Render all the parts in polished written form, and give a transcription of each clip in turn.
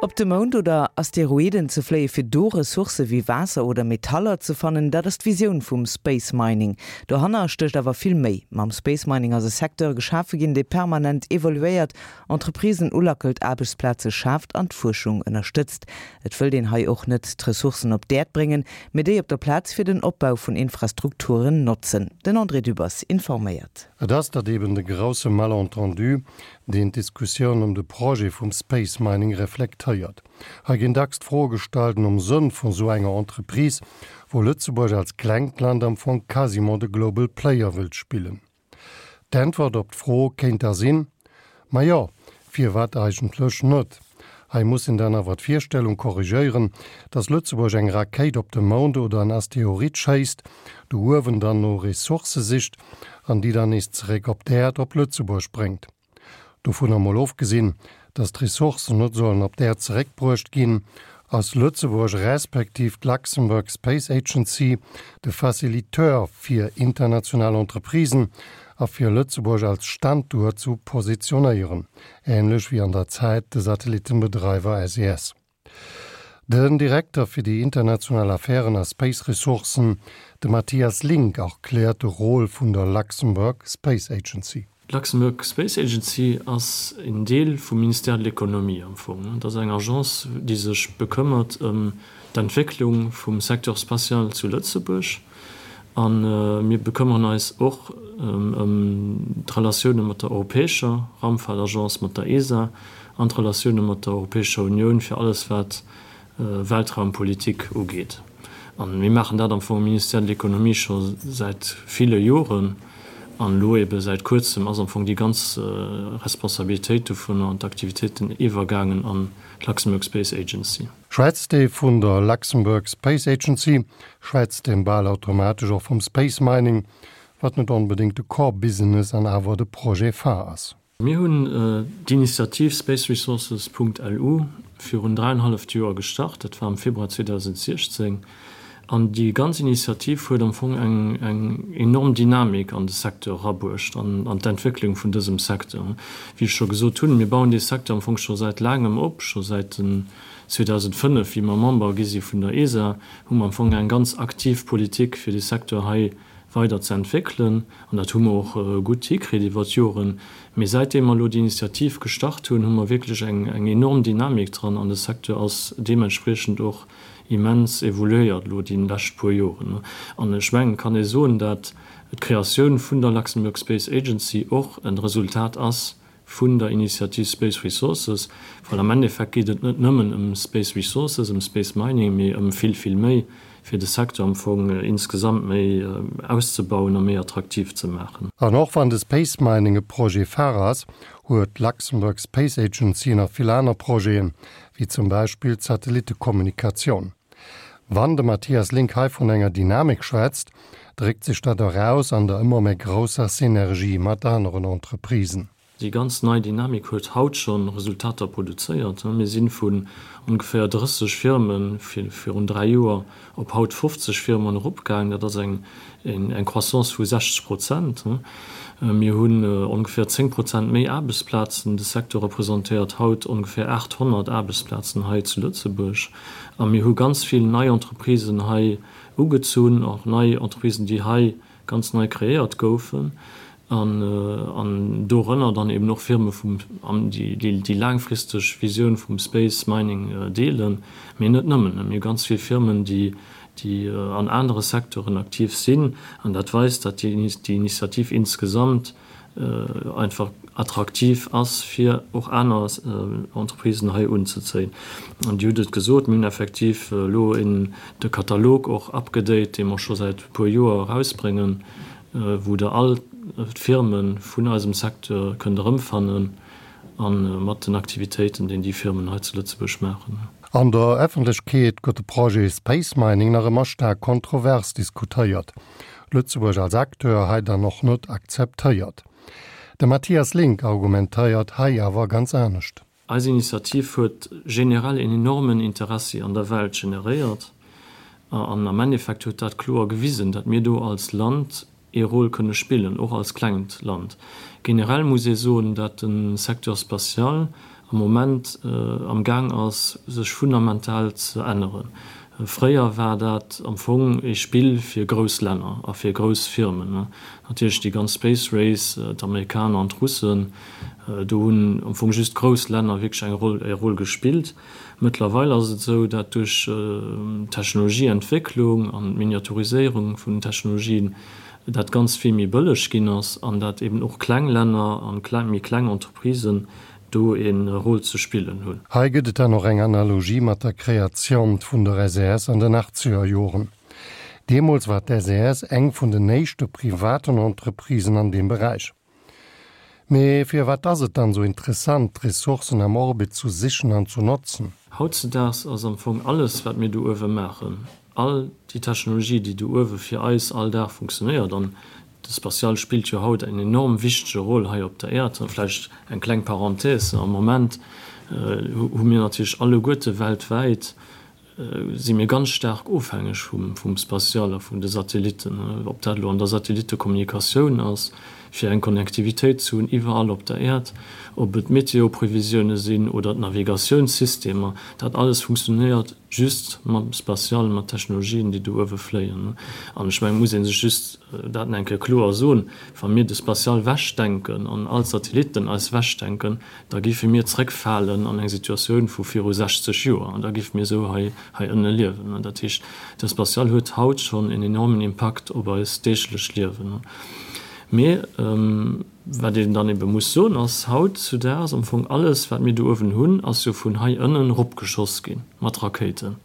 Op de Mound oder Asteroiden ze fléie fir do Ressourcë wéi Waasser oder Metaller ze fannen, dat ass d'Visioun vum Space Mining. Dohanner stécht awer vill méi. Mam Space Mining ass e Secteur geschafe ginn, dee permanent evoluéiert, Entreprisen ulackelt, Aarbechtsplaze schaaft an d'Fuerschung ënnerstëtzt. Et wëllt een hei och net d'Ressourcen op d'Äerd bréngen, mee déi op der Plaz fir den Opbau vun Infrastrukturen notzen. Den André Dübbers informéiert. Et ass dat eben de grousse Malentendu, deen d'Diskussioun ëm de Projet vum Space Mining reflektéiert. Hei ginn dacks d'Froe gestallt nom Sënn vun esou enger Entreprise, wou Lëtzebuerg als klengt Land am Fong quasiment de Global Player wëllt spillen. D'Äntwert op d'Fro kéint da sinn, Ma jo, firwat eigentlech net? Hei muss een dann awer d'Virstellung korrigéieren, dass Lëtzebuerg eng Rakéit op de Mound oder en Asteroid schéisst, do uewen dann no Ressourcë sicht an déi dann nees zeréck op d'Äerd, op Lëtzebuerg bréngt. Dovunner mol ofgesinn, dass d'Ressourcen net sollen op d'Äerd zeréckbruecht ginn, ass Lëtzebuerg respektiv d'Luxembourg Space Agency de Faciliteur fir international Entreprisen a fir Lëtzebuerg als Standuert zu positionéieren, änlech wéi an der Zäit de Satellittenbedreiwer SES. Den Direkter fir déi international Affären a Space Ressourcen, de Mathias Link, erkläert de Rôle vun der Luxembourg Space Agency. D'Luxembourg Space Agency ass een Deel vum Ministère de l'Économie am Fong. Et ass eng Agence, déi sech bekëmmert ëm d'Entwécklung vum Secteur spatial zu Lëtzebuerg. A mir bekëmmeren eis och ëm d'Relatioune mat der europäescher Raumfahrtagence, mat der ESA, an d'Relatioune mat der Europäescher Unioun fir alles wat Weltraumpolitik ugeet. A mir maachen dat am Fong am Ministère de l'Économie scho säit ville Joren. An elo ebe säit Kuerzem ass am Fong déi ganz Responsabilitéit dovunner an d'Aktivitéiten iwwergaangen an d'Luxembourg Space Agency. Schwätzt ee vun der Luxembourg Space Agency, schwätzt een bal automatesch och vum Space Mining, wat net onbedéngt de Core Business an awer de Projet phare ass. Mir hunn d'Initiativ spaceresources.lu virun dräienhalleft Joer gestart, dat war am Februar 2016. An déi ganz Initiativ huet am Fong eng enorm Dynamik an de Secteur erabruecht an an d'Entwécklung vun dësem Secteur. Wéi ech scho gesot hunn, mir bauen dee Secteur am Fong scho säit laangem op, scho säit den 2005, wéi mer Member gi si vun der ESA, hu mer am Fong eng ganz aktiv Politik fir dee Secteur hei weider ze entwéckelen. An dat hu mer och gutt hikritt iwwer d'Joren. Mee säitdeem mer elo déi Initiativ gestart hunn, hu mer wierklech eng enorm Dynamik dran an de Secteur ass deementspriechend och immens evoluéiert elo déi lescht puer Joren. An ech mengen, et kann ee soen, dat d'Kreatioun vun der Luxembourg Space Agency och e Resultat ass vun der Initiativ Space Resources, well am Endeffekt geet et net nëmmen ëm Space Resources, ëm Space Mining, mee ëm vill, vill méi, fir de Secteur am Fong insgesamt méi auszebauen a méi attraktiv ze maachen. An och wann de Space Mining e Projet phare ass, huet d'Luxembourg Space Agency nach vill aner Projeten, wéi zum Beispill d'Satellittekommunikatioun. Wann de Mathias Link hei vun enger Dynamik schwätzt, dréckt sech dat och aus an der ëmmer méi grousser Synergie mat aneren Entreprisen. Déi ganz nei Dynamik huet haut scho Resultater produzéiert. Mir si vun ongeféier 30 Firme virun 3 Joer op haut 50 Firmen eropgaangen. Dat ass eng Croissance vu 60 Prozent. Mir hunn ongeféier 10 Prozent méi Aarbechtsplazen. De Secteur representéiert haut ongeféier 800 Aarbechtsplazen hei zu Lëtzebuerg. A mir hu ganz vill nei Entreprisen hei ugezunn, och nei Entreprisen, déi hei ganz nei kreéiert goufen, an dorënner dann eben och Firme vum, déi déi laangfristeg Visioun vum Space Mining deelen, mee net nëmmen. Mir hu ganz vill Firmen, déi déi an anere Secteuren aktiv sinn, an dat weist, datt déi Initiativ insgesamt einfach attraktiv ass, fir och aner Entreprisen hei unzezéien. An Dir hutt et gesot, mir hunn effektiv elo de Katalog och upgedate, dee mer scho säit e puer Joer erausbréngen, wou Der all d'Firme vun eisem Secteur kënnt erëmfannen a mat den Aktivitéiten, déi déi Firmen hei zu Lëtzebuerg maachen. An der Effentlechkeet gëtt de Projet Space Mining nach ëmmer staark kontrovers diskutéiert. Lëtzebuerg als Acteur hei dann och net akzeptéiert. De Mathias Link argumentéiert hei awer ganz anescht. Eis Initiativ huet generell een enormen Interessi an der Welt generéiert an am Endeffekt huet dat kloer gewisen, dat mir do als Land ee Rôle kënne spillen, och als klengt Land. Generell muss ee soen, dat de Secteur spatial. am Moment am Gaang ass, sech fundamental ze änneren. Fréier war dat am Fong ee Spill fir grouss Länner a fir grouss Firmen. Natierlech déi ganz Space Race, d'Amerikaner an d'Russen, do hunn am Fong just grouss Länner wierklech eng Roll, e Rôle gespillt. Mëttlerweil ass et esou, dat duerch d'Technologieentwécklung an d'Miniaturiséierung vun den Technologien dat Ganzt vill méi bëlleg ginn ass an dat eben och kleng Länner an méi kleng Entreprisen do e Rôle ze spillen hunn. Hei gëtt et dann och eng Analogie mat der Kreatioun vun der SES an den achtzeger Joren. Deemools war d'SES eng vun den éischte privaten Entreprisen an deem Beräich. Mee firwat ass et dann esou interessant, d'Ressourcen am Orbit zu sichen an zu notzen? Hautzedaags ass am Fong alles, wat mir do uewe maachen, all déi Technologie, déi do uewe fir eis all Dag funktionéiert, an de Spatial spillt jo haut eng enorm wichtege Roll hei op der Äerd. Vläicht eng kleng Parenthèse, Am Moment hu mir natierlech alleguerte weltwäit si mir ganz staark ofhängeg vum Spatial a vun de Satellitten, ob dat elo an der Satellittekommunikatioun ass, fir eng Connectivitéit ze hunn iwwerall op der Äerd, ob et d'Meteoprevisioune sinn oder d'Navigatiounssystemer, dat alles funktionéiert just mam Spatial, mat Technologien, déi do uewe fléien. An ech mengen, et muss ee sech just dat nach eng Kéier kloer soen, Wa mir de Spatial wechdenken an all d'Satellitten eis wechdenken, da géife mir zréckfalen an eng Situatioun vu viru 60 Joer an da géife mir esou hei hei ënne liewen. Dat heescht, de Spatial huet haut schonn en enormen Impakt op eist deeglecht Liewen. Mee wat een dann ebe muss soen, ass, hautzudaags am Fong alles, wat mir do uewen hunn, ass jo vun hei ënnen eropgeschoss gi mat Rakéiten.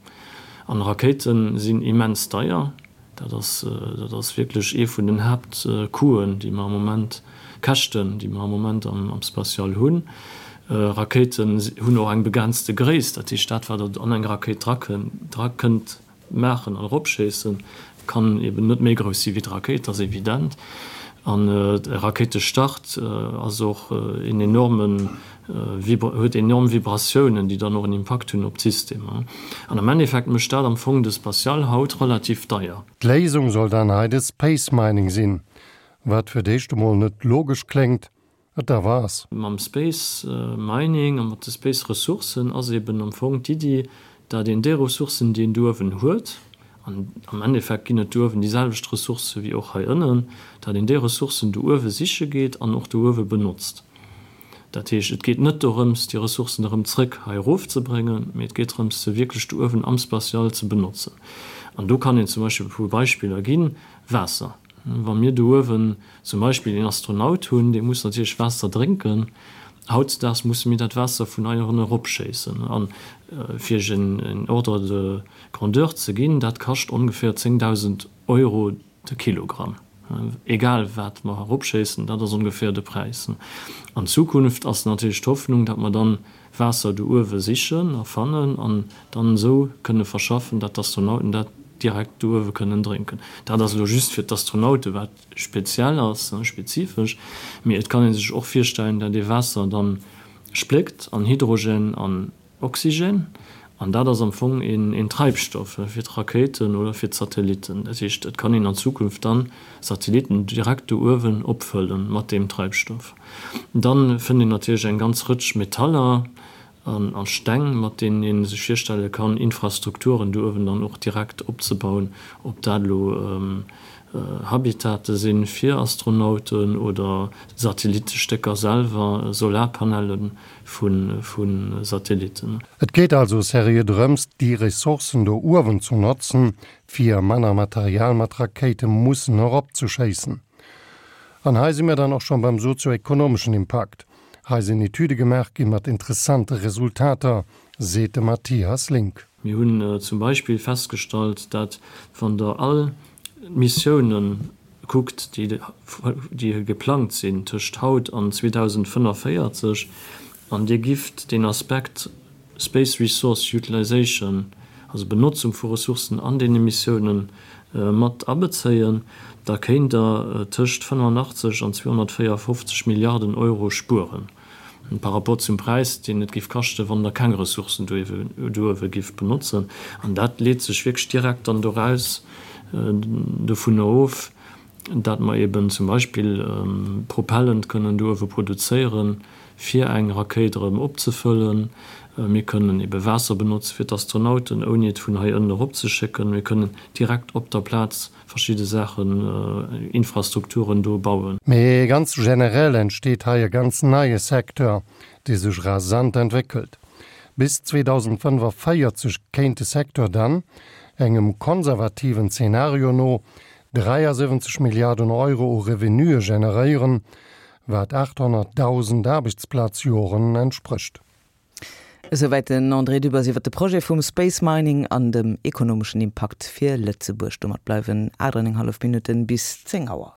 An Rakéite sinn immens deier. Dat ass, dat ass wierklech ee vun den Haaptcoûten, déi mer am Moment, Käschten, déi mer am Moment am Spatial hunn. Rakéiten hunn och eng begrenzte Gréisst, dat heescht, dat wat Der an eng Rakéit dra kënnt maachen an eropschéissen, kann eben net méi grouss si wéi d'Rakéit, dat ass evident. An e Rakéitestart ass och een enormen huet enorm Vibratiounen, déi dann och en Impakt hunn op d'Systemer. An am Endeffekt mécht dat am Fong de Spatial haut relativ deier. D'Léisung soll dann hei de Space Mining sinn, wat fir d'éischt emol net logesch kléngt, et awer ass. Mam Space Mining a mat de Space Ressourcen ass eben am Fong d'Iddi, dat een déi Ressourcen, déi een do uewen huet, an am Endeffekt ginn et do uewen déi selwecht Ressourcë wéi och hei ënnen, dat een déi Ressourcen do uewe siche geet an och do uewe benotzt. Dat heescht, et geet net dorëms, déi Ressourcen erëm zrëck hei erofzebréngen, mee et geet drëms, se wierklech do uewen am Spatial ze benotzen. An do kann een zum Beispill e puer Beispiller ginn, Waasser. Wa mir do uewen zum Beispill een Astronaut hunn, dee muss natierlech Waasser drénken. Hautzedaags musse mir dat Waasser vun hei ënnen eropschéissen. A fir Iech en Ordre de grandeur ze ginn, dat kascht ongeféier 10.000 Euro De Kilogramm, egal wat mer eropschéissen, dat ass ongeféier de Präis. An Zukunft ass natierlech d'Hoffnung, datt mer dann Waasser do uewe sichen a fannen an dann esou kënne verschaffen, datt d'Astronauten dat direkt do uewe kënnen drénken. Dat ass elo just fir d'Astronaute wat speziell ass, spezifesch, mee et kann ee sech och virstellen, datt ee Waasser dann spléckt an Hydrogen an Oxygen, an dat ass am Fong een Treibstoff fir d'Rakéiten oder fir d'Satellitten. Dat heescht, et kann een an Zukunft dann Satellitten direkt do uewen opfëlle mat deem Treibstoff. Dann fënnt een natierlech eng ganz Rëtsch Metaller a Steng, mat deenen ee sech virstelle kann, Infrastrukturen do uewen dann och direkt opzebauen, ob dat elo Habitate sinn fir Astronauten oder Satellittestécker selwer, Solarpanellen vu Satellitten. Et geet also seriö drëms, déi Ressourcen do uewen zu notzen, fir manner Material mat Rakéite mussen eropzeschéissen. An hei si mir dann och schonn beim sozio-ekonomeschen Impakt. Hei sinn Etüde gemaach gi mat interessante Resultater, seet de Mathias Link. Mir hunn zum Beispill festgestallt, dat wann Der all d'Missiounen kuckt, déi geplangt sinn tëscht haut an 2045, an Dir gifft deen Aspekt Space Resource Utilization, also Benotzung vu Ressourcen an deene Missiounen, mat abezéien, da kéint Der tëscht 85 an 254 Milliarden Euro spueren par rapport zum Präis, deen et géif kaschten, wann Der keng Ressourcen do uewe gifft benotzen. An dat leet sech wierklech direkt dann doraus, dovunner of, dat mer eben zum Beispill Propellant kënnen do uewe produzéieren. fir eng Rakéit erëm opzefëllen. Mir kënnen ebe Waasser benotze fir d'Astronauten, ouni et vun hei ënnen eropzeschécken. Mir kënnen direkt op der Plaz verschidde Saachen, Infrastrukturen do bauen. Mee ganz generell entsteet hei e ganz neie Secteur, dee sech rasant entwéckelt. Bis 2045 kéint de Secteur dann, engem konservativen Zenario no, 73 Milliarden Euro u Revenuë generéieren, wat 800.000 Aarbechtsplazjoren entsprécht. Esouwäit den André Dübbers iwwer de Projet vum Space Mining an dem ekonomeschen Impakt fir Lëtzebuerg. Domat bleiwen 8 an eng hallef Minutten bis 10 Auer.